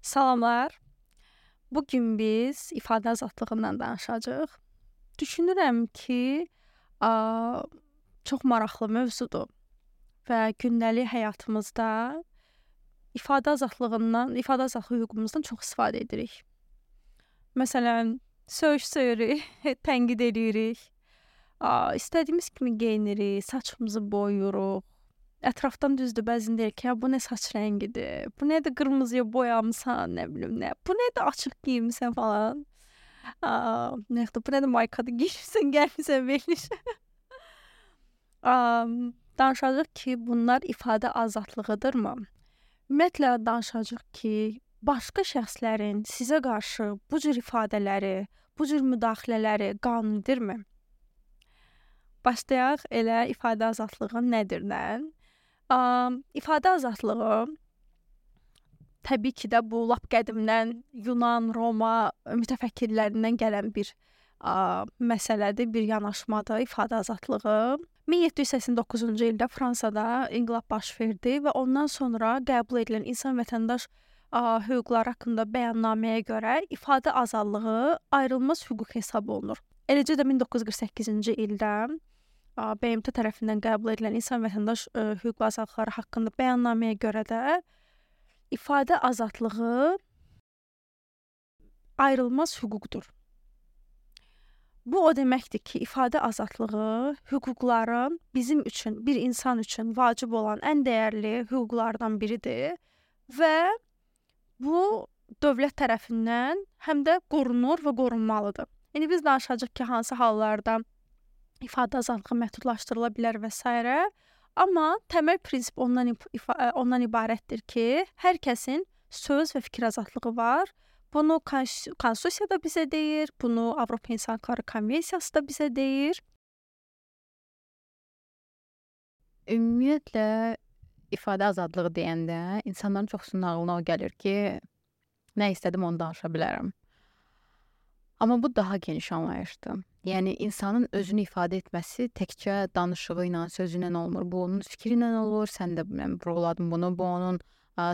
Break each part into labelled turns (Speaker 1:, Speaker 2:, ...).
Speaker 1: Salamlar. Bu gün biz ifadə azadlığından danışacağıq. Düşünürəm ki, çox maraqlı mövzudur və gündəlik həyatımızda ifadə azadlığı hüququmuzdan çox istifadə edirik. Məsələn, söyüş-söyürük, tənqid edirik, istədiyimiz kimi geyinirik, saçımızı boyuruq. Ətrafdan düzdür, bəzən deyir ki, bu nə saç rəngidir, bu nə də qırmızıya boyamısan, nə bilim nə, bu nə də açıq geyinmisən falan. Bu nə də maykadır geyinmisən, gəlmisən verilişə. Danışacağıq ki, bunlar ifadə azadlığıdırmı? Ümumiyyətlə danışacağıq ki, başqa şəxslərin sizə qarşı bu cür ifadələri, bu cür müdaxilələri qanunidirmi? Başlayaq elə ifadə azadlığı nədirdən? İfadə azadlığı təbii ki də bu lap qədimdən Yunan, Roma mütəfəkkirlərindən gələn bir məsələdir, bir yanaşmadır ifadə azadlığı. 1789-cu ildə Fransada inqilab baş verdi və ondan sonra qəbul edilən insan vətəndaş hüquqları haqqında bəyannaməyə görə ifadə azadlığı ayrılmaz hüquq hesab olunur. Eləcə də 1948-ci ildə BMT tərəfindən qəbul edilən insan vətəndaş hüquq və azadlıqları haqqında bəyannaməyə görə də ifadə azadlığı ayrılmaz hüquqdur. Bu o deməkdir ki, ifadə azadlığı hüquqların bizim üçün, bir insan üçün vacib olan ən dəyərli hüquqlardan biridir və bu dövlət tərəfindən həm də qorunur və qorunmalıdır. İndi biz danışacağıq ki, hansı hallarda ifadə azadlığı məhdudlaşdırıla bilər və s. Amma təməl prinsip ondan ibarətdir ki, hər kəsin söz və fikir azadlığı var. Bunu konstitusiya da bizə deyir, bunu Avropa İnsan Hüquqları Konvensiyası da bizə deyir.
Speaker 2: Ümumiyyətlə, ifadə azadlığı deyəndə insanların çoxsunun ağlına o gəlir ki, nə istədim onu danışa bilərəm. Amma bu daha geniş anlayışdır. Yəni, insanın özünü ifadə etməsi təkcə danışığı ilə, sözü ilə olmur. Bu, onun fikri ilə olur, sən də vurguladın bunu. Bu, onun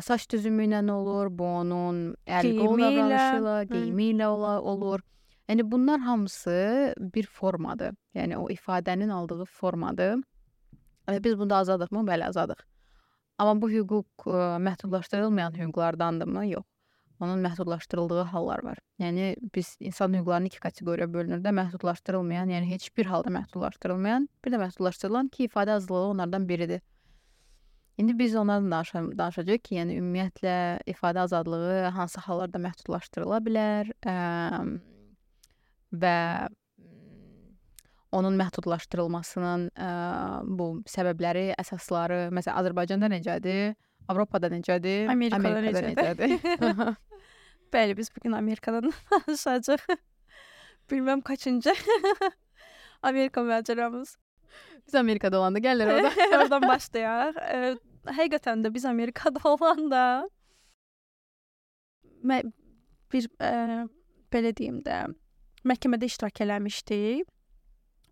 Speaker 2: saç düzümü ilə olur, bu, onun əl-qol davranışı, geyimi ilə olur. Yəni, bunlar hamısı bir formadır. Yəni, o ifadənin aldığı formadır. Biz bunda azadıq mı? Bəli, azadıq. Amma bu hüquq məhdudlaşdırılmayan hüquqlardandırmı? Yox. Onun məhdudlaşdırıldığı hallar var. Yəni, biz insan hüquqlarını iki kateqoriyaya bölünür də, məhdudlaşdırılmayan, yəni heç bir halda məhdudlaşdırılmayan, bir də məhdudlaşdırılan ki, ifadə azadlığı onlardan biridir. İndi biz onlardan danışacağıq ki, yəni ümumiyyətlə ifadə azadlığı hansı hallarda məhdudlaşdırıla bilər və onun məhdudlaşdırılmasının bu səbəbləri, əsasları, məsələn, Azərbaycanda necədir? Avropada necədir?
Speaker 1: Amerikada necədir? Bəli, biz bugün Amerikadan danışacağıq. Bilməm kaçıncı Amerika macəramız.
Speaker 2: Biz Amerikada olanda gəlir orada.
Speaker 1: Oradan başlayaq. Həqiqətən də biz Amerikada olanda belə deyim də, məhkəmədə iştirak eləmişdik.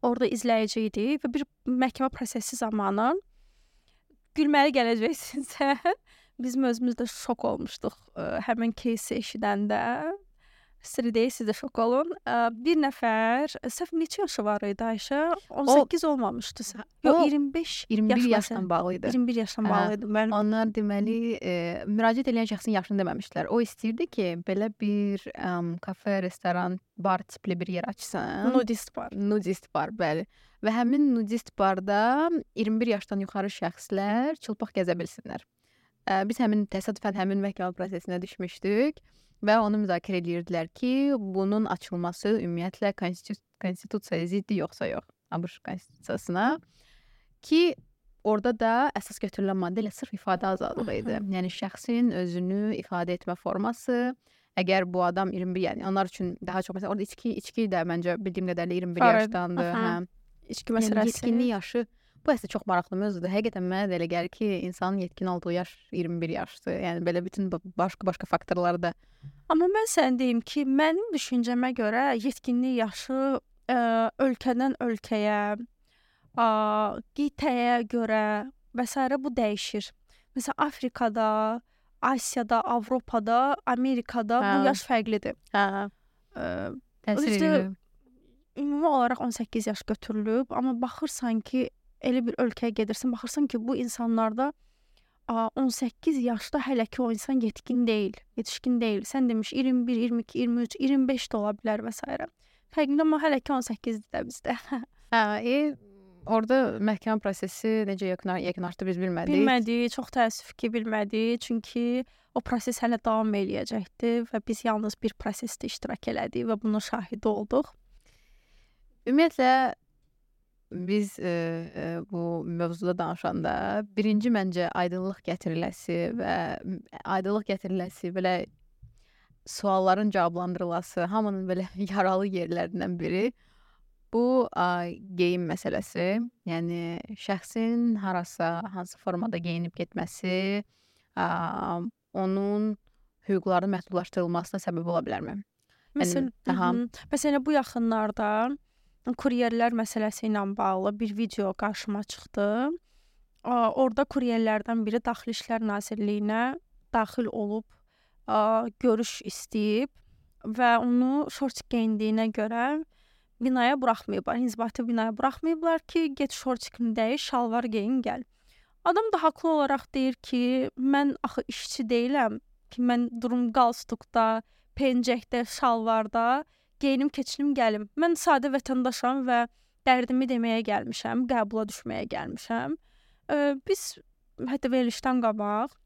Speaker 1: Orada izləyici idik və bir məhkəmə prosesi zamanı gülməli gələcəksinizsə, bizim özümüz də şok olmuşduq həmin кейsi eşidəndə. Siri deyil, siz də şok olun. Bir nəfər, səhv neçə yaşı var idi Ayşə? 18 olmamışdı. Yox,
Speaker 2: 21 yaşdan bağlı idi.
Speaker 1: 21 yaşdan bağlı idi.
Speaker 2: Onlar deməli, müraciət edən şəxsin yaşını deməmişdilər. O istəyirdi ki, belə bir kafe, restoran, bar tipli bir yer açsın.
Speaker 1: Nudist bar.
Speaker 2: Nudist bar, bəli. Və həmin nudist barda 21 yaşdan yuxarı şəxslər çılpaq gəzə bilsinlər. Biz təsadüfən həmin məhkəmə prosesinə düşmüşdük və onu müzakirə edirdilər ki, bunun açılması ümumiyyətlə konstitusiyaya ziddi yoxsa yox, ABŞ konstitusiyasına ki, orada da əsas götürülən maddə ilə sırf ifadə azadlığı idi. Yəni, şəxsin özünü ifadə etmə forması, əgər bu adam 21, yəni onlar üçün daha çox, məsələn, orada içki də məncə bildiyim qədərlə 21 yaşdandır.
Speaker 1: İçki məsələsi.
Speaker 2: Yetkinlik yaşı, bu əslində çox maraqlı mövzudur. Həqiqətən mənə də elə gəlir ki, insanın yetkin olduğu yaş 21 yaşdır. Yəni, belə bütün başqa faktorları da.
Speaker 1: Amma mən sənə deyim ki, mənim düşüncəmə görə yetkinlik yaşı ölkədən ölkəyə, qitəyə görə və s. bu dəyişir. Məsələn, Afrikada Asiyada, Avropada, Amerikada bu yaş fərqlidir.
Speaker 2: Təsir
Speaker 1: İşte,
Speaker 2: edir.
Speaker 1: ümumi olaraq 18 yaş götürülüb, amma baxırsan ki, elə bir ölkəyə gedirsən, baxırsan ki, bu insanlarda 18 yaşda hələ ki o insan yetkin deyil, yetişkin deyil. Sən demiş 21, 22, 23, 25 də ola bilər və s. Fərqində amma hələ ki 18-dir də bizdə.
Speaker 2: Orada məhkəmə prosesi necə yekunlaşdı biz bilmədik.
Speaker 1: Bilmədik, çox təəssüf ki, bilmədik. Çünki o proses hələ davam eləyəcəkdi və biz yalnız bir prosesdə iştirak elədik və bunun şahidi olduq.
Speaker 2: Ümumiyyətlə biz bu mövzuda danışanda birinci məncə aydınlıq gətiriləsi belə sualların cavablandırılması, hamının belə yaralı yerlərindən biri bu geyim məsələsi. Yəni şəxsin harasa, hansı formada geyinib getməsi onun hüquqlarının məhdudlaşdırılmasına səbəb ola bilərmi?
Speaker 1: Məsələn, bu yaxınlarda kuryerlər məsələsi ilə bağlı bir video qarşıma çıxdı. Orada kuryerlərdən biri Daxili İşlər Nazirliyinə daxil olub görüş istəyib və onu şort geyindiyinə görə binaya buraxmayıblar, inzibati binaya buraxmayıblar ki, get şortikini dəyiş, şalvar geyin, gəl. Adam da haqlı olaraq deyir ki, mən axı işçi deyiləm ki, mən durum qalstukda, pencəkdə, şalvarda geyinim, keçinim, gəlim. Mən sadə vətəndaşam və dərdimi deməyə gəlmişəm, qəbula düşməyə gəlmişəm. Biz hətta verilişdən qabaq,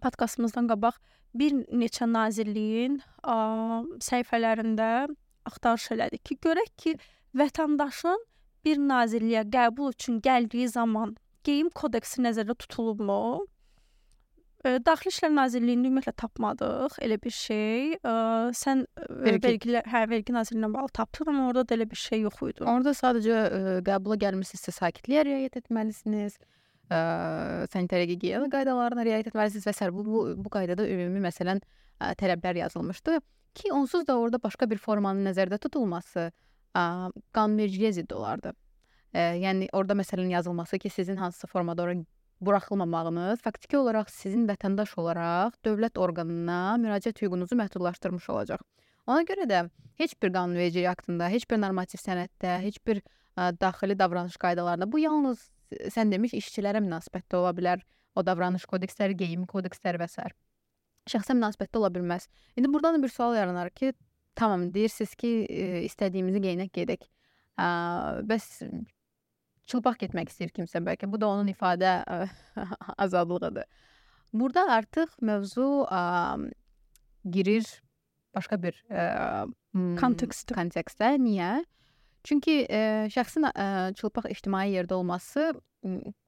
Speaker 1: podkastımızdan qabaq bir neçə nazirliyin səhifələrində axtarış elədik ki, görək ki, vətəndaşın bir nazirliyə qəbul üçün gəldiyi zaman geyim kodeksi nəzərdə tutulubmu? Daxili İşlər Nazirliyində ümumiyyətlə tapmadıq elə bir şey. Sən vergi nazirliyinə bağlı tapdın, amma orada da elə bir şey yox idi.
Speaker 2: Orada sadəcə qəbula gəlmirsinizsə sakitliyə riayət etməlisiniz, sanitariya gigiyena qaydalarına riayət etməlisiniz və s. Bu qaydada ümumi məsələn tələblər yazılmışdı ki, onsuz da orada başqa bir formanın nəzərdə tutulması qanunvericiliyə zidd olardı. Yəni orada məsələn yazılması ki, sizin hansısa formada ora buraxılmamağınız faktiki olaraq sizin vətəndaş olaraq dövlət orqanına müraciət hüququnuzu məhdudlaşdırmış olacaq. Ona görə də heç bir qanunvericilik aktında, heç bir normativ sənəddə, heç bir daxili davranış qaydalarında bu yalnız sən demiş işçilərə münasibətdə ola bilər. O davranış kodeksləri, geyim kodeksləri və s. Şəxsə münasibətdə ola bilməz. İndi buradan da bir sual yaranar ki, tamam deyirsiniz ki, istədiyimizi geyinək gedək. Bəs çılpaq getmək istəyir kimsə bəlkə. Bu da onun ifadə azadlığıdır. Burada artıq mövzu girir başqa bir kontekstə. Niyə? Çünki şəxsin çılpaq ictimai yerdə olması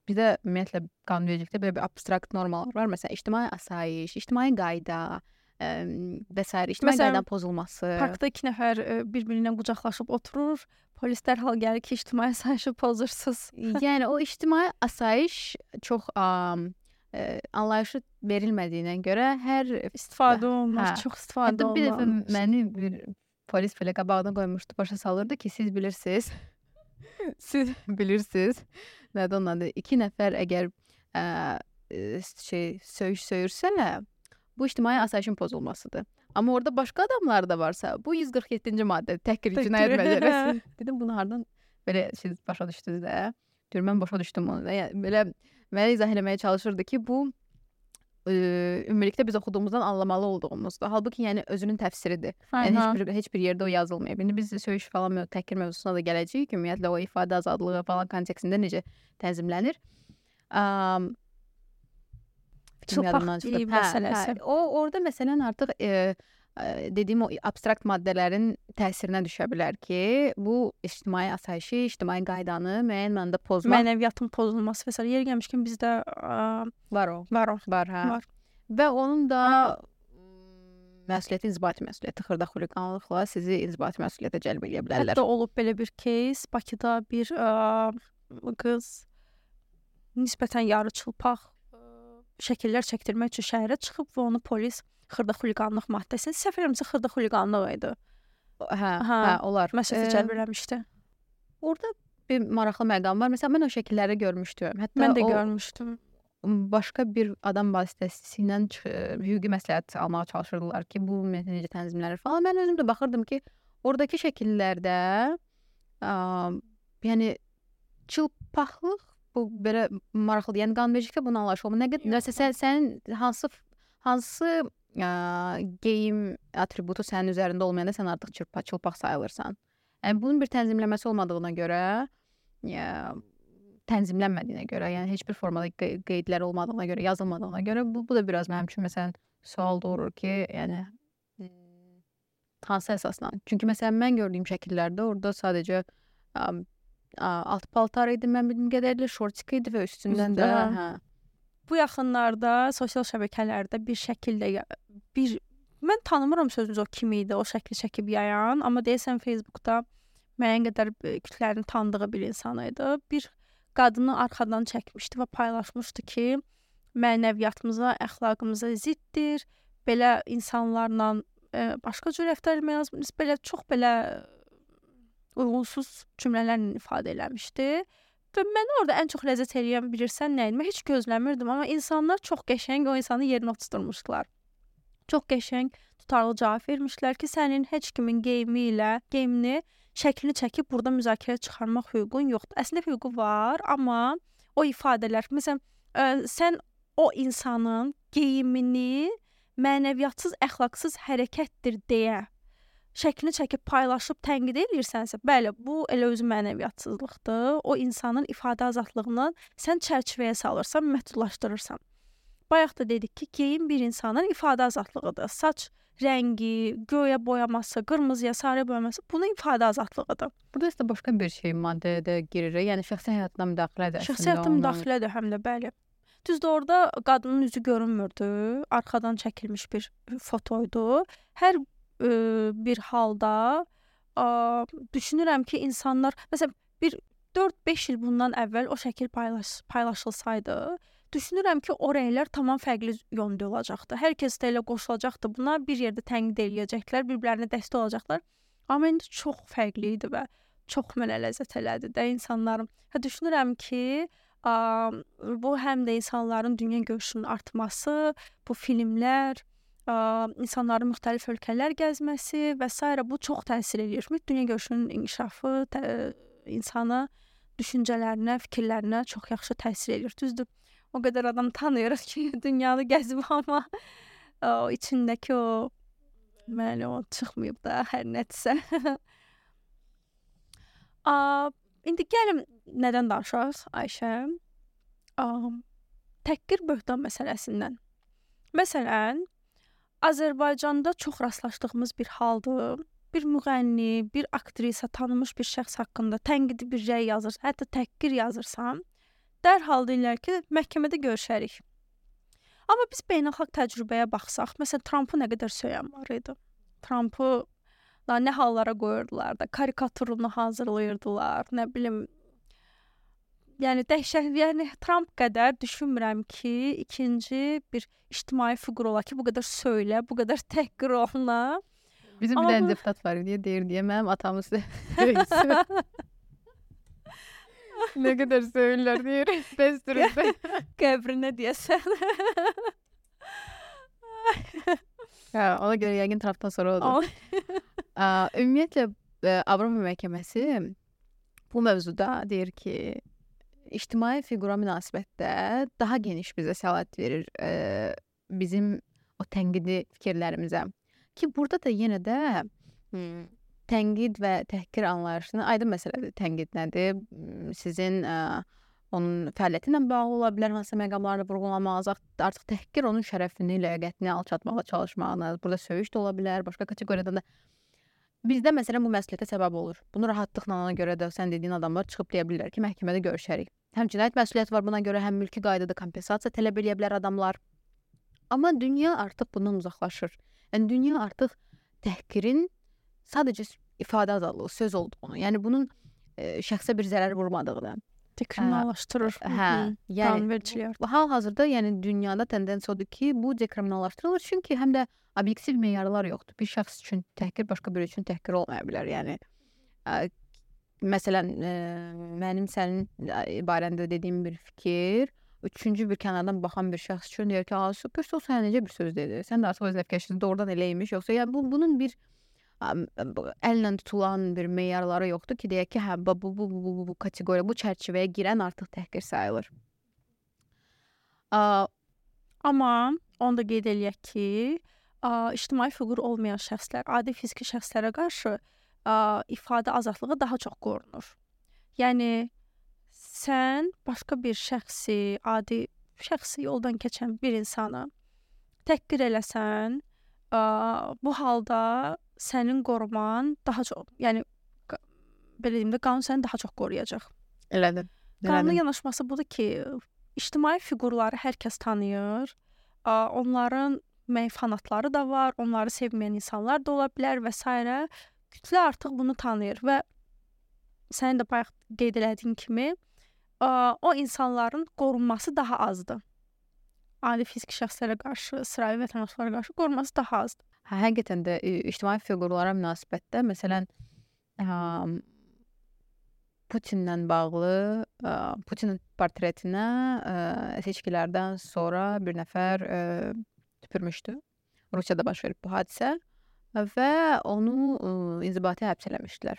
Speaker 2: bizdə ümumiyyətlə qanunvericilikdə belə bir abstrakt normalar var. Məsələn, ictimai asayiş, ictimai qayda və s. ictimai qaydanın pozulması.
Speaker 1: Parkda 2 nəfər bir-birinə qucaqlaşıb oturur. Polis dərhal gəlir ki, ictimai asayişi pozursunuz.
Speaker 2: Yəni o ictimai asayiş çox anlayışı verilmədiyinə görə hər
Speaker 1: istifadə olunur, çox istifadə olunur.
Speaker 2: Bir dəfə məni bir polis belə qabağına qoymuşdu, başa salırdı ki, siz bilirsiniz. Siz bilirsiniz. Nədir onun adı? 2 nəfər əgər söyüş söyürsələr, bu ictimai asayişin pozulmasıdır. Amma orada başqa adamlar da varsa, bu 147-ci maddə təhqir cinayət məcəlləsi. Dedim, bunu hardan belə siz başa düşdünüz də? Deyir, mən başa düşdüm onu da. Yəni, belə mənə izah eləməyə çalışırdı ki, bu ümumilikdə biz oxuduğumuzdan anlamalı olduğumuzdur. Halbuki yəni özünün təfsiridir. Yəni heç bir yerdə o yazılmayıb. İndi biz söyüş falan təhqir mövzusuna da gələcəyik. Ümumiyyətlə o ifadə azadlığı falan kontekstində necə tənzimlənir?
Speaker 1: Çılpaq geyim məsələsi.
Speaker 2: Orada məsələn artıq dediyim o abstrakt maddələrin təsirinə düşə bilər ki, bu ictimai asayişi, ictimai qaydanı müəyyən mənada pozmaq.
Speaker 1: Mənəviyyatın pozulması və s. Yer gəlmişkən bizdə
Speaker 2: var o.
Speaker 1: Var.
Speaker 2: Və onun da məsuliyyəti inzibati məsuliyyəti, xırda xuliqanlıqla sizi inzibati məsuliyyətə cəlb edə bilərlər.
Speaker 1: Hətta olub belə bir case, Bakıda bir qız nisbətən yarı çılpaq şəkillər çəkdirmək üçün şəhərə çıxıb və onu polis xırda xuliqanlıq maddəsini, səhv eləmirəmsə xırda xuliqanlıq idi.
Speaker 2: Olar.
Speaker 1: Məsuliyyətə cəlb eləmişdi.
Speaker 2: Orada bir maraqlı məqam var. Məsələn, mən o şəkilləri görmüşdüm. Hətta
Speaker 1: mən də görmüşdüm.
Speaker 2: başqa bir adam vasitəsilə hüquqi məsləhət almağa çalışırdılar ki, bu necə tənzimlənir falan. Mən özüm də baxırdım ki, oradakı şəkillərdə yəni çılpaqlıq bu belə maraqlıdır. Yəni qanunvericiliklə bunu anlaşılır. Nə qədər sənin hansı geyim atributu sənin üzərində olmayanda sən artıq çılpaq sayılırsan. Yəni bunun bir tənzimləməsi olmadığına görə, tənzimlənmədiyinə görə, yəni heç bir formada qeydlər olmadığına görə, yazılmadığına görə bu da biraz mənim üçün məsələn sual doğurur ki, yəni hansı əsasla? Çünki məsələn mən gördüyüm şəkillərdə orada sadəcə alt paltar idi, mən bildiyim qədərilə şortik idi və üstündən də
Speaker 1: Bu yaxınlarda sosial şəbəkələrdə bir şəkildə mən tanımıram sözünüz o kim idi, o şəkli çəkib yayan, amma deyəsən Facebookda müəyyən qədər kütlərin tanıdığı bir insan idi. Bir qadını arxadan çəkmişdi və paylaşmışdı ki, mənəviyyatımıza, əxlaqımıza ziddir. Belə insanlarla başqa cür rəftar etmək lazımdır. Belə çox belə uyğunsuz cümlələrlə ifadə eləmişdi. Və məni orada ən çox ləzzət eləyən bilirsən nə idi? Mən heç gözləmirdim, amma insanlar çox qəşəng o insanı yerinə oturtmuşdular. Çox qəşəng, tutarlı cavab vermişlər ki, sənin heç kimin geyimini, şəklini çəkib burada müzakirə çıxarmaq hüququn yoxdur. Əslində hüququ var, amma o ifadələr, məsələn, sən o insanın geyimini mənəviyyatsız, əxlaqsız hərəkətdir deyə şəklini çəkib paylaşıb tənqid edirsənsə, bəli, bu elə özü mənəviyyatsızlıqdır. O insanın ifadə azadlığını sən çərçivəyə salırsan, məhdudlaşdırırsan. Bayaq da dedik ki, geyim bir insanın ifadə azadlığıdır. Saç rəngi, göyə boyaması, qırmızıya, sarıya boyaması bunun ifadə azadlığıdır.
Speaker 2: Burada isə başqa bir şey maddəyə də girir. Yəni şəxsi həyatına müdaxilədir.
Speaker 1: Şəxsi həyatına müdaxilədir həm də, bəli. Düzdür, orada qadının üzü görünmürdü. Arxadan çəkilmiş bir fotoydu. Hər bir halda düşünürəm ki, insanlar, məsələn, bir 4-5 il bundan əvvəl o şəkil paylaşılsaydı, düşünürəm ki, o rəylər tamam fərqli yöndə olacaqdı. Hər kəs də elə qoşulacaqdı buna, bir yerdə tənqid eləyəcəklər, bir-birlərinə dəstək olacaqlar. Amma indi çox fərqli idi və çox mənə ləzzət elədi də insanların. Düşünürəm ki, bu həm də insanların dünya görüşünün artması, bu filmlər, insanların müxtəlif ölkələr gəzməsi və s. bu çox təsir edir. Dünya görüşünün inkişafı insana, düşüncələrinə, fikirlərinə çox yaxşı təsir edir. Düzdür, o qədər adam tanıyırıq ki, dünyanı gəzib, amma o içindəki o çıxmayıb da hər nədirsə. İndi gəlin nədən danışaq, Ayşə? Təhqir böhtan məsələsindən. Məsələn, Azərbaycanda çox rastlaşdığımız bir haldır. Bir müğənni, bir aktrisa, tanınmış bir şəxs haqqında tənqidi bir rəy yazırsan, hətta təhqir yazırsan, dərhal deyirlər ki, məhkəmədə görüşərik. Amma biz beynəlxalq təcrübəyə baxsaq, məsələn, Trumpı nə qədər söyən var idi. Trumpı nə hallara qoyurdular da, karikaturunu hazırlayırdılar, nə bilim. Yəni dəhşət, yəni Trump qədər düşünmürəm ki, ikinci bir ictimai fiqur ola ki, bu qədər söylə, bu qədər təhqir oluna.
Speaker 2: Bizim bir dənə deputat var deyə deyir deyə mənim atamız söyür. Nə qədər söyürlər deyir. Bəsdirində.
Speaker 1: Qəbrinə deyəsən.
Speaker 2: Ona görə yəqin Trumpdan sonra odur. Ümumiyyətlə, Avropa məhkəməsi bu mövzuda deyir ki, ictimai fiqura münasibətdə daha geniş bizə səlahiyyət verir bizim o tənqidi fikirlərimizə. Ki, burada da yenə də tənqid və təhqir anlayışını aydın məsələdir. Tənqid nədir? Sizin onun fəaliyyəti ilə bağlı ola bilər, hansısa məqamlarını vurğulamağınız, artıq təhqir onun şərəfini, ləyaqətini alçatmağa çalışmağınız, burada söyüş də ola bilər, başqa kateqoriyadan da. Bizdə məsələn bu məsuliyyətə səbəb olur. Bunu rahatlıqla ona görə də sən dediyin adamlar çıxıb deyə bilirlər ki, məhkəmədə görüşərik. Həm cinayət məsuliyyəti var buna görə, həm mülki qaydada kompensasiya tələb edə bilər adamlar. Amma dünya artıq bundan uzaqlaşır. Yəni dünya artıq təhqirin sadəcə ifadə azadlığı, söz olduğunu, yəni bunun şəxsə bir zərər vurmadığını
Speaker 1: dekriminallaşdırır.
Speaker 2: Yəni hal-hazırda yəni dünyada tendensiya odur ki, bu dekriminallaşdırılır, çünki həm də obyektiv meyarlar yoxdur. Bir şəxs üçün təhqir başqa biri üçün təhqir olmaya bilər. Yəni məsələn, mənim sənin barəndə dediyim bir fikir üçüncü bir kənardan baxan bir şəxs üçün deyir ki, super, o sənə necə bir söz dedi? Sən də artıq öz nəfkəşiniz doğrudan eləymiş, yoxsa yəni bunun bir əllə tutulan bir meyarları yoxdur ki, deyək ki, hə bu kateqoriya, bu çərçivəyə girən artıq təhqir sayılır.
Speaker 1: Amma onu da qeyd eləyək ki, ictimai fiqur olmayan şəxslər, adi fiziki şəxslərə qarşı ifadə azadlığı daha çox qorunur. Yəni sən başqa bir şəxsi, adi şəxsi yoldan keçən bir insanı təhqir eləsən, bu halda sənin qoruman daha çox, yəni belə deyim də, qanun səni daha çox qoruyacaq.
Speaker 2: Elədir.
Speaker 1: Qanunun yanaşması budur ki, ictimai fiqurları hər kəs tanıyır. Onların fanatları da var, onları sevməyən insanlar da ola bilər və s. Kütlə artıq bunu tanıyır və sənin də bayaq qeyd elədiyin kimi o insanların qorunması daha azdır. Adi fiziki şəxslərə qarşı, sıravi vətəndaşlara qarşı qorunması daha azdır.
Speaker 2: Həqiqətən də ictimai fiqurlara münasibətdə, məsələn, Putinlə bağlı, Putinin portretinə seçkilərdən sonra bir nəfər tüpürmüşdü. Rusiyada baş verib bu hadisə və onu inzibati həbs eləmişdilər.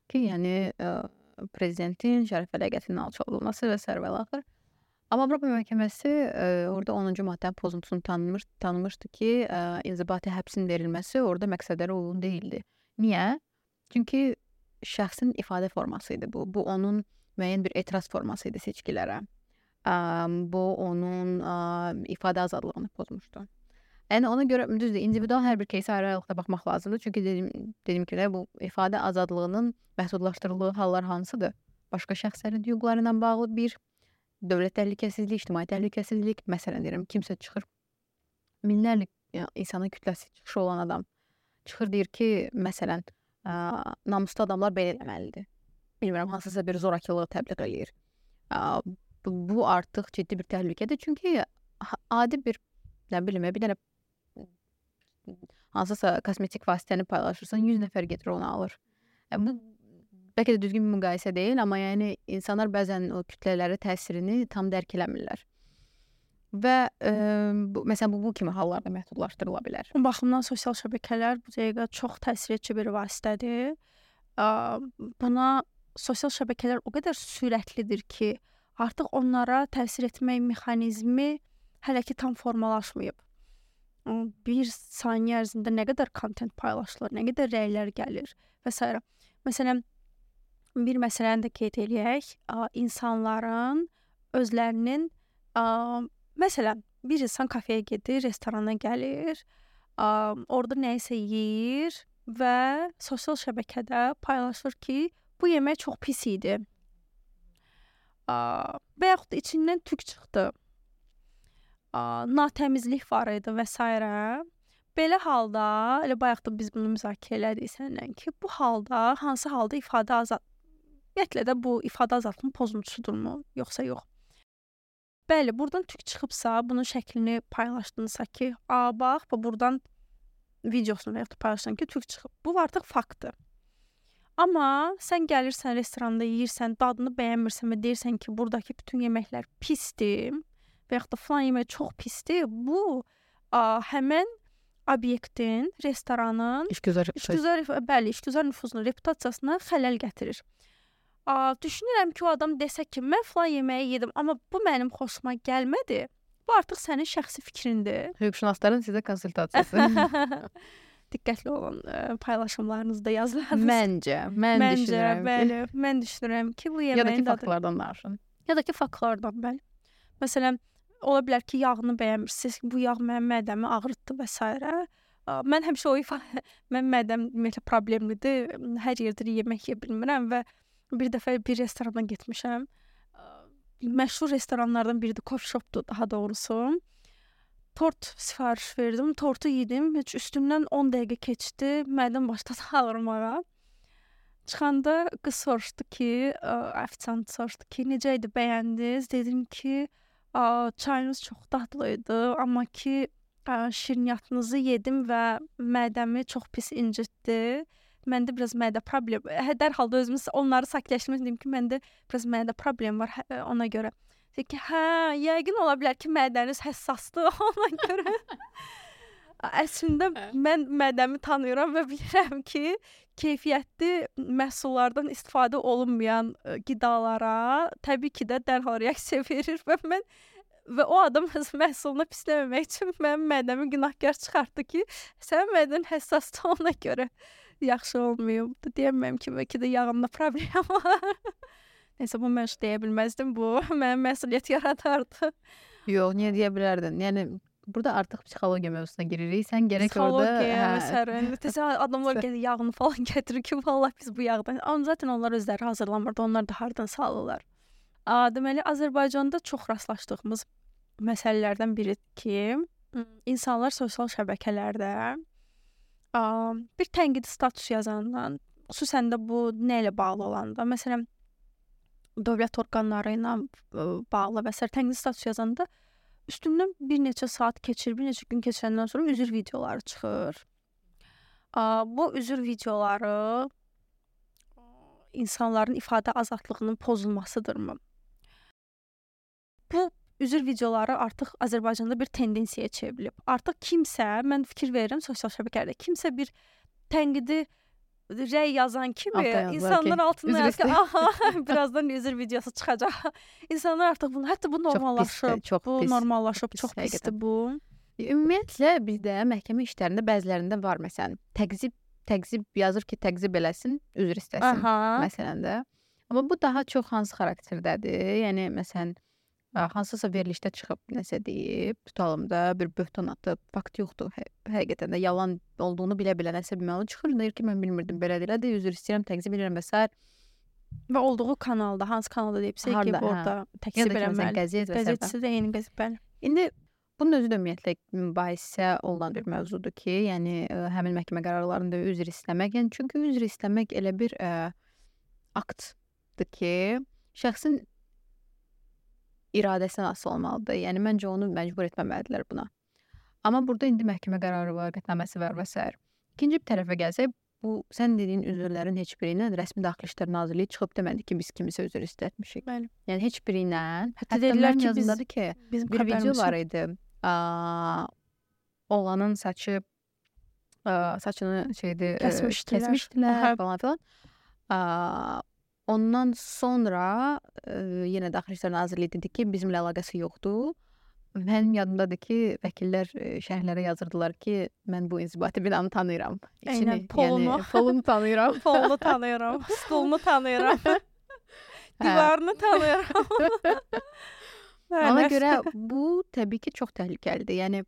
Speaker 2: Ki, yəni prezidentin şərəf və ləyaqətinin alçaldılması və s. və axır. Amma Avropa məhkəməsi orada 10-cu maddənin pozuntusunu tanımışdı ki, inzibati həbsin verilməsi orada məqsədlərə uyğun deyildi. Niyə? Çünki şəxsin ifadə forması idi bu. Bu onun müəyyən bir etiraz forması idi seçkilərə. Bu onun ifadə azadlığını pozmuşdu. Yəni ona görə düzdür, individual hər bir кейsə ayrı-ayrılıqda baxmaq lazımdır. Çünki dediyim kimi bu ifadə azadlığının məhdudlaşdırıldığı hallar hansıdır? Başqa şəxslərin hüquqları ilə bağlı bir dövlət təhlükəsizlik, ictimai təhlükəsizlik, məsələn deyirəm, kimsə çıxır, minlərlə insanın kütləsi çıxışı olan adam çıxır deyir ki, məsələn, namuslu adamlar belə eləməlidir. Bilmirəm, hansısa bir zorakılığı təbliğ eləyir. Bu artıq ciddi bir təhlükədir. Çünki adi bir, nə bilim, bir dənə hansısa kosmetik vasitəni paylaşırsan, 100 nəfər gedir onu alır. Bu bəlkə də düzgün bir müqayisə deyil, amma yəni insanlar bəzən o kütlələri təsirini tam dərk eləmirlər. Və məsələn bu kimi hallarda məhdudlaşdırıla bilər.
Speaker 1: Bu baxımdan sosial şəbəkələr bu dəqiqə çox təsiredici bir vasitədir. Buna sosial şəbəkələr o qədər sürətlidir ki, artıq onlara təsir etmək mexanizmi hələ ki tam formalaşmayıb. Bir saniyə ərzində nə qədər kontent paylaşılır, nə qədər rəylər gəlir və s. Məsələn, bir məsələni də qeyd eləyək. İnsanların özlərinin, məsələn, bir insan kafeyə gedir, restorana gəlir, orada nəyisə yeyir və sosial şəbəkədə paylaşır ki, bu yemək çox pis idi. Və yaxud da içindən tük çıxdı. Natəmizlik var idi və s. Belə halda, elə bayaq da biz bunu müzakirə elədik səninlə ki, bu halda, hansı halda ifadə ümumiyyətlə də bu ifadə azadlığının pozuntusudurmu, yoxsa yox? Bəli, buradan tük çıxıbsa, bunun şəklini paylaşdınızsa ki, bax, buradan videosunu və yaxud da paylaşsan ki, tük çıxıb. Bu artıq faktdır. Amma sən gəlirsən, restoranda yeyirsən, dadını bəyənmirsən və deyirsən ki, buradakı bütün yeməklər pisdir və yaxud da falan yemək çox pisdir, bu həmən obyektin, restoranın işgüzar nüfuzuna, reputasiyasına xələl gətirir. Düşünürəm ki, o adam desə ki, mən falan yeməyi yedim, amma bu mənim xoşuma gəlmədi. Bu artıq sənin şəxsi fikrindir.
Speaker 2: Hüquqşünasların sizə konsultasiyası.
Speaker 1: Diqqətli olun paylaşımlarınızda, yazılarınızda.
Speaker 2: Mən düşünürəm.
Speaker 1: Bəli, mən düşünürəm ki, bu yeməyin
Speaker 2: dadı. Ya da ki, faktlardan danışın.
Speaker 1: Ya da ki, faktlardan, bəli. Məsələn, ola bilər ki, yağını bəyənmirsiniz, bu yağ mənim mədəmi ağrıtdı və s. Mən həmişə mən mədəm ümumiyyətlə problemlidir. Hər yerdə yemək yeyə bilmirəm və bir dəfə bir restorana getmişəm. Məşhur restoranlardan biridir, coffee shopdur daha doğrusu. Tort sifariş verdim, tortu yedim. Heç üstündən 10 dəqiqə keçdi, mədəm başladı ağrımağa. Çıxanda qız soruşdu ki, ofisiant soruşdu ki, necə idi, bəyəndiniz? Dedim ki, çayınız çox dadlı idi, amma ki, şirniyyatınızı yedim və mədəmi çox pis incitdi. Məndə biraz mədə problem. Dərhal da özümüz onları sakitləşdirmək dedim ki, məndə biraz mədə problem var ona görə. Deyir ki, hə, yəqin ola bilər ki, mədəniz həssasdır ona görə. Əslində mən mədəmi tanıyıram və bilirəm ki, keyfiyyətli məhsullardan istifadə olunmayan qidalara təbii ki də dərhal reaksiya verir və o adam öz məhsulunu pisləməmək üçün mənim mədəmi günahkar çıxartdı ki, sənin mədən həssasdır ona görə yaxşı olmayıb. Deyəmməm ki, bəlkə də yağımda problem var. Nəysə, bu mən deyə bilməzdim, bu mənim məsuliyyət yaradardı.
Speaker 2: Yox, niyə deyə bilərdin? Yəni burada artıq psixologiya mövzusuna giririk. Sən gərək orada
Speaker 1: məsələn, təsəvvür adamlar gəlir yağını falan gətirir ki, vallahi biz bu yağdan. Amma zaten onlar özləri hazırlamırdı. Onlar da hardan salırlar. Deməli, Azərbaycanda çox rastlaşdığımız məsələlərdən biridir ki, insanlar sosial şəbəkələrdə bir tənqidi status yazandan, xüsusən də bu nə ilə bağlı olanda, məsələn, dövlət orqanları ilə bağlı və s. tənqidi status yazanda üstündən bir neçə saat keçir, bir neçə gün keçəndən sonra üzr videoları çıxır. Bu üzr videoları insanların ifadə azadlığının pozulmasıdırmı? Bu üzr videoları artıq Azərbaycanda bir tendensiyaya çevrilib. Artıq kimsə, mən fikir verirəm sosial şəbəkələrdə, kimsə bir tənqidi rəy yazan kimi insanlar altına yazır ki, aha, birazdan üzr videosu çıxacaq. İnsanlar artıq bunu, hətta bu normallaşıb, çox pisdir bu.
Speaker 2: Ümumiyyətlə bizdə məhkəmə işlərində bəzilərində var, məsələn, təqzib yazır ki, təqzib eləsin, üzr istəsin, məsələn də. Amma bu daha çox hansı xarakterdədir? Yəni, məsələn, hansısa verilişdə çıxıb nəsə deyib, tutalım da bir böhtan atıb, fakt yoxdur, həqiqətən də yalan olduğunu bilə-bilə nəsə bilməli çıxır, deyir ki, mən bilmirdim, belə deyil, də üzr istəyirəm, təqzib edirəm və s.
Speaker 1: Və olduğu kanalda, hansı kanalda deyibsə ki, orada təqzib eləməli. Qəzetçisi də eyni qəzet, bəli.
Speaker 2: İndi bunun özü də ümumiyyətlə mübahisə olunan bir mövzudur ki, yəni həmin məhkəmə qərarlarında üzr istəmək, yəni çünki üzr istəmək elə bir aktdır ki, şəxsin iradəsinə asılı olmalıdır. Yəni məncə onu məcbur etməməlidirlər buna. Amma burada indi məhkəmə qərarı var, qətnaməsi var və s. İkinci bir tərəfə gəlsək, bu sən dediyin üzrlərin heç biri ilə rəsmi Daxili İşlər Nazirliyi çıxıb demədi ki, biz kimisə üzr istətmişik.
Speaker 1: Bəli.
Speaker 2: Yəni heç biri ilə,
Speaker 1: hətta dedilər ki,
Speaker 2: yazındadır ki, bir video var idi. Oğlanın saçını kəsmişdilər falan filan. Ondan sonra yenə Daxili İşlər Nazirliyi dedi ki, bizimlə əlaqəsi yoxdur. Mənim yadımdadır ki, vəkillər şərhlərə yazırdılar ki, mən bu inzibati binanı tanıyıram.
Speaker 1: Eynən, polunu.
Speaker 2: Yəni, polunu tanıyıram.
Speaker 1: Polunu tanıyıram, stolunu tanıyıram. Divarını tanıyıram.
Speaker 2: Ona görə bu təbii ki, çox təhlükəlidir. Yəni,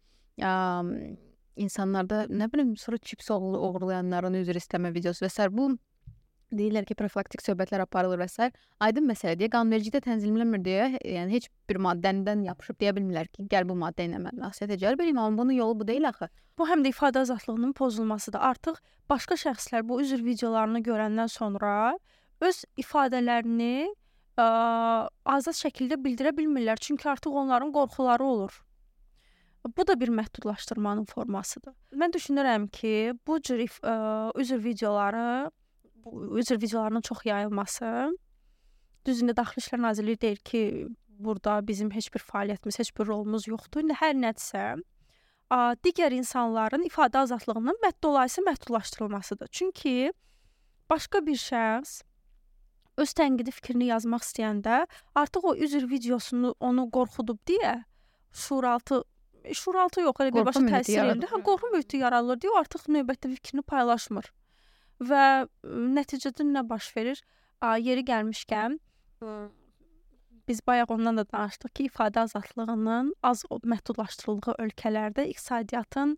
Speaker 2: insanlarda, nə bilim, sonra çips oğurlayanların üzr istəmə videosu və s. Bu deyirlər ki, profilaktik söhbətlər aparılır və s. Aydın məsələ deyə, qanunvericilikdə tənzimlənmir deyə, yəni heç bir maddədən yapışıb deyə bilmirlər ki, gəl bu maddə ilə mən məsuliyyətə cəlb edeyim, amma bunun yolu bu deyil axı.
Speaker 1: Bu həm də ifadə azadlığının pozulmasıdır. Artıq başqa şəxslər bu üzr videolarını görəndən sonra öz ifadələrini azad şəkildə bildirə bilmirlər. Çünki artıq onların qorxuları olur. Bu da bir məhdudlaşdırmanın formasıdır. Mən düşünürəm ki, bu cür üzr videolarının çox yayılması, düzündə Daxili İşlər Nazirliyi deyir ki, burada bizim heç bir fəaliyyətimiz, heç bir rolumuz yoxdur. İndi hər nədirsə, digər insanların ifadə azadlığının dolayısı məhdudlaşdırılmasıdır. Çünki başqa bir şəxs öz tənqidi fikrini yazmaq istəyəndə artıq o üzr videosunu onu qorxudub deyə şuuraltı yox, elə birbaşa təsir edir. Qorxu mühiti yaradılır deyə o artıq növbətdə fikrini paylaşmır. Və nəticədə nə baş verir? Yeri gəlmişkən, biz bayaq ondan da danışdıq ki, ifadə azadlığının az məhdudlaşdırıldığı ölkələrdə iqtisadiyyatın,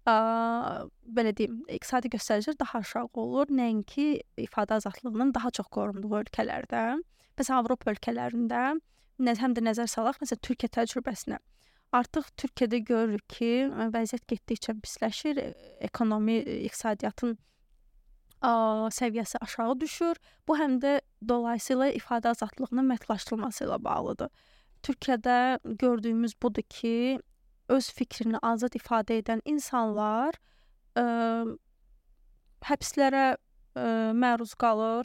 Speaker 1: belə deyim, iqtisadi göstəricilər daha aşağı olur, nəinki ifadə azadlığının daha çox qorunduğu ölkələrdə. Məsələn, Avropa ölkələrində həm də nəzər salaq, məsələn, Türkiyə təcrübəsinə. Artıq Türkiyədə görürük ki, vəziyyət getdikcə pisləşir, ekonomi, iqtisadiyyatın səviyyəsi aşağı düşür. Bu həm də dolayısıyla ifadə azadlığının məhdudlaşdırılması ilə bağlıdır. Türkiyədə gördüyümüz budur ki, öz fikrini azad ifadə edən insanlar həbslərə məruz qalır.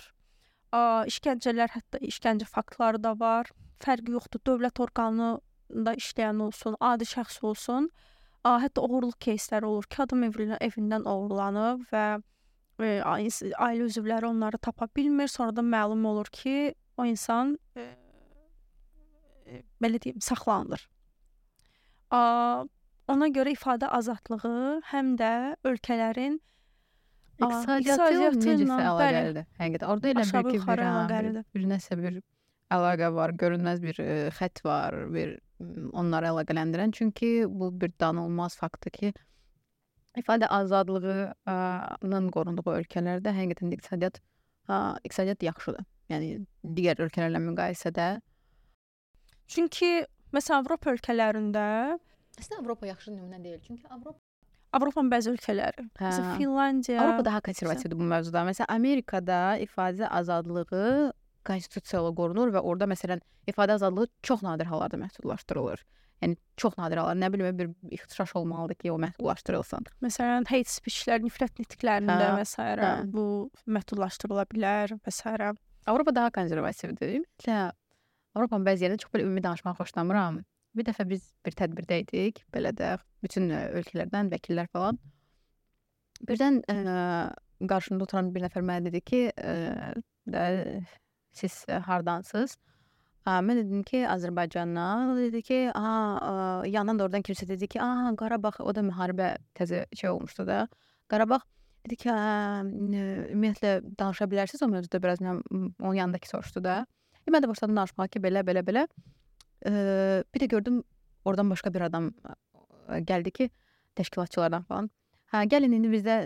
Speaker 1: İşgəncələr, hətta işgəncə faktları da var fərqi yoxdur. Dövlət orqanında işləyən olsun, adi şəxs olsun. Hətta oğurluq keysləri olur ki, adam evindən oğurlanıb və ailə üzvləri onları tapa bilmir. Sonradan məlum olur ki, o insan belə deyim, saxlanılır. Ona görə ifadə azadlığı həm də ölkələrin
Speaker 2: İqtisadiyyatı necəsə əlaqəlidir. Həqiqətən orada elə
Speaker 1: aşağı
Speaker 2: bir ki,
Speaker 1: yuxarı əlaqəlidir.
Speaker 2: bir nəsə bir əlaqə var, görünməz bir xətt var, bir onları əlaqələndirən. Çünki bu bir danılmaz faktdır ki, ifadə azadlığının qorunduğu ölkələrdə həqiqətən də iqtisadiyyat yaxşıdır. Yəni digər ölkələrlə müqayisədə.
Speaker 1: Çünki məsələn Avropa ölkələrində
Speaker 2: Əslində Avropa yaxşı nümunə deyil. Çünki
Speaker 1: Avropanın bəzi ölkələri, məsələn Finlandiya,
Speaker 2: Avropa daha konservativdir bu mövzuda. Məsələn Amerikada ifadə azadlığı konstitusiyayla qorunur və orada məsələn ifadə azadlığı çox nadir hallarda məhdudlaşdırılır. Yəni çox nadir hallarda, nə bilim bir ixtişaş olmalıdır ki, o məhdudlaşdırılsın.
Speaker 1: Məsələn hate speech-lər, nifrət nitqlərində və s. bu məhdudlaşdırıla bilər və s.
Speaker 2: Avropa daha konservativdir. Ümumiyyətlə Avropanın bəzi yerində çox belə ümumi danışmağı xoşlamıram. Bir dəfə biz bir tədbirdə idik, belə də bütün ölkələrdən vəkillər falan. Birdən qarşımda oturan bir nəfər mənə dedi ki, siz hardansınız? Mən dedim ki, Azərbaycandan. O dedi ki, yandan da oradan kimsə dedi ki, Qarabağ, o da müharibə təzə olmuşdu da. Qarabağ dedi ki, ümumiyyətlə danışa bilərsiniz o mövzuda biraz, onun yanındakı soruşdu da. Mən də başladım danışmağa ki, belə. Bir də gördüm, oradan başqa bir adam gəldi ki, təşkilatçılardan falan. Gəlin indi bizdə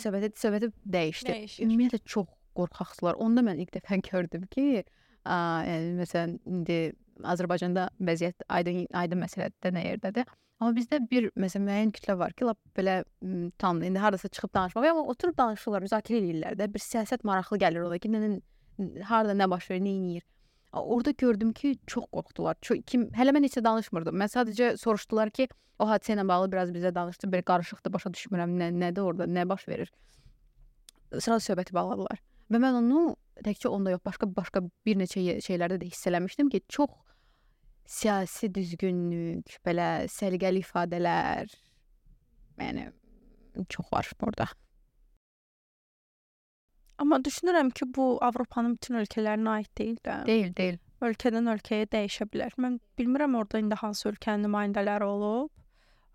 Speaker 2: söhbəti dəyişdi. Ümumiyyətlə çox qorxaqdılar. Onda mən ilk dəfə gördüm ki, yəni məsələn indi Azərbaycanda vəziyyət aydın məsələdə nə yerdədir. Amma bizdə bir məsələn müəyyən kütlə var ki, lap belə tamam indi hardasa çıxıb danışmaq, amma oturub danışırlar, müzakirə edirlər də. Bir siyasət maraqlı gəlir ola ki, harda nə baş verir, nə edir. Orada gördüm ki, çox qorxdular. Hələ mən heç də danışmırdım. Mən sadəcə soruşdular ki, o hadisə ilə bağlı biraz bizə danışdı. Bir qarışıqdır, başa düşmürəm, nədir orada, nə baş verir. Sırada söhbəti bağladılar. Və mən onu təkcə onda yox, başqa bir neçə şeylərdə də hiss eləmişdim ki, çox siyasi düzgünlük, belə səliqəli ifadələr, yəni çox var orada.
Speaker 1: Amma düşünürəm ki, bu Avropanın bütün ölkələrinə aid deyil də.
Speaker 2: Deyil.
Speaker 1: Ölkədən ölkəyə dəyişə bilər. Mən bilmirəm orada indi hansı ölkənin nümayəndələri olub.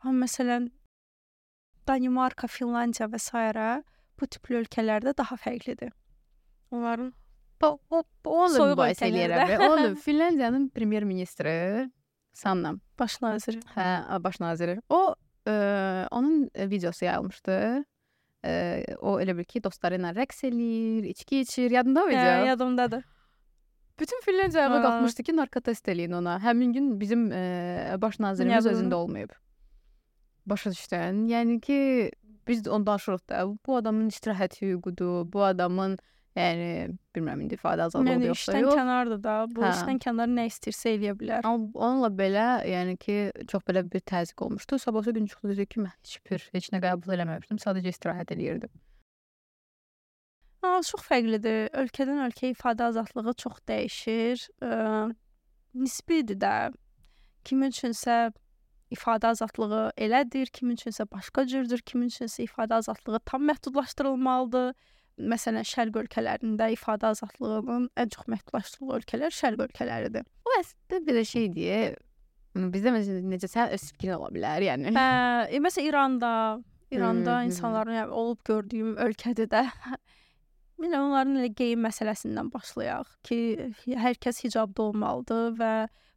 Speaker 1: Amma məsələn Danimarka, Finlandiya və s. bu tipli ölkələrdə daha fərqlidir. Onların
Speaker 2: onu bahs eləyərəm. Onu Finlandiyanın premyer ministri Sanna.
Speaker 1: Baş naziri.
Speaker 2: Baş naziri. O onun videosu yayılmışdı. O elə bil ki, dostları ilə rəqs eləyir, içki içir. Yadında mı video?
Speaker 1: Yadımdadır.
Speaker 2: Bütün Finlandiya ayağa qalxmışdı ki, narkotest eləyin ona. Həmin gün bizim baş nazirimiz özündə olmayıb. Başa düşdün? Yəni ki, biz onu danışırıq da. Bu adamın istirahət hüququdur. Bu adamın, yəni, bilmirəm, indi ifadə azadlığı yoxsa yox.
Speaker 1: İşdən kənardır da. Bu işdən kənar nə istəyirsə eləyə bilər.
Speaker 2: Amma onunla belə, yəni ki, çox belə bir təzyiq olmuşdu. Sabahsı gün çıxdı dedi ki, mən heç nə qəbul eləməmişdim. Sadəcə istirahət eləyirdim.
Speaker 1: Çox fərqlidir. Ölkədən ölkəyə ifadə azadlığı çox dəyişir. Nisbidir də. Kimin üçünsə ifadə azadlığı elədir, kimin üçünsə başqa cürdür, kimin üçünsə ifadə azadlığı tam məhdudlaşdırılmalıdır. Məsələn, şərq ölkələrində ifadə azadlığının ən çox məhdudlaşdırıldığı ölkələr şərq ölkələridir.
Speaker 2: O əslində bir şey deyə, bizdə necə sən öz fikrin ola bilər, yəni.
Speaker 1: Məsələn, İranda insanların olub gördüyüm ölkədə də onların elə geyim məsələsindən başlayaq ki, hər kəs hicabda olmalıdır və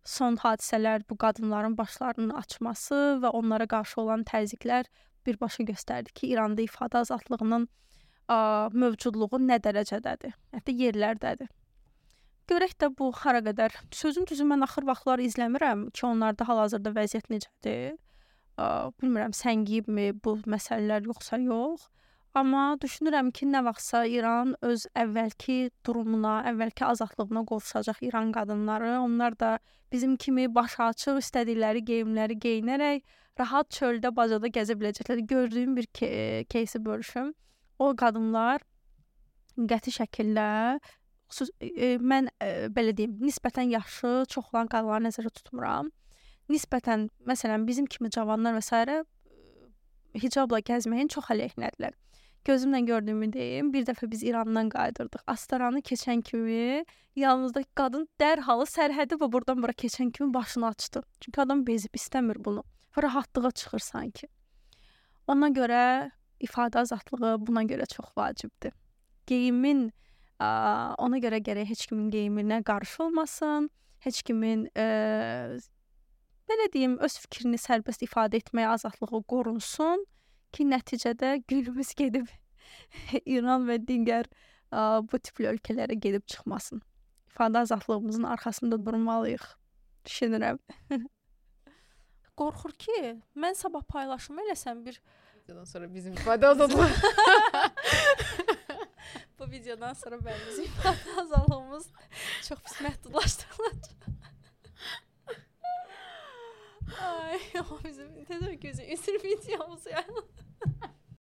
Speaker 1: son hadisələr bu qadınların başlarının açması və onlara qarşı olan təzyiqlər birbaşa göstərdi ki, İranda ifadə azadlığının mövcudluğu nə dərəcədədir, hətta yerlərdədir. Görək də bu hara qədər. Sözün düzü mən axır vaxtlar izləmirəm ki, onlarda hal-hazırda vəziyyət necədir. Bilmirəm, səngiyibmi bu məsələlər yoxsa yox. Amma düşünürəm ki, nə vaxtsa İran öz əvvəlki durumuna, əvvəlki azadlığına qovuşacaq İran qadınları. Onlar da bizim kimi başı açıq, istədikləri geyimləri geyinərək rahat çöldə, bacada gəzə biləcəklər. Gördüyüm bir keysi bölüşüm. O qadınlar qəti şəkildə mən belə deyim, nisbətən yaşı çox olan qadınları nəzərdə tutmuram. Nisbətən, məsələn, bizim kimi cavanlar və s. hicabla gəzməyin çox əleyhinədirlər. Gözümlə gördüyümü deyim, bir dəfə biz İrandan qayıdırdıq. Astaranı keçən kimi yanımızdakı qadın dərhal sərhədi və buradan bura keçən kimi başını açdı. Çünki adam bezib istəmir bunu. Və rahatlığa çıxır sanki. Ona görə ifadə azadlığı buna görə çox vacibdir. Geyimin ona görə gərək heç kimin geyiminə qarşı olmasın, heç kimin belə deyim, öz fikrini sərbəst ifadə etməyə azadlığı qorunsun ki, nəticədə günümüz gedib İran və digər bu tipli ölkələrə gedib çıxmasın. İfadə azadlığımızın arxasında durmalıyıq, düşünürəm. Qorxur ki, mən sabah paylaşım eləsəm bir
Speaker 2: videodan sonra bizim ifadə azadlığı
Speaker 1: bu videodan sonra bizim ifadə azadlığımız çox pis məhdudlaşdırılacaq. Ay, o bizim tezər gözü üzür videomuz yani.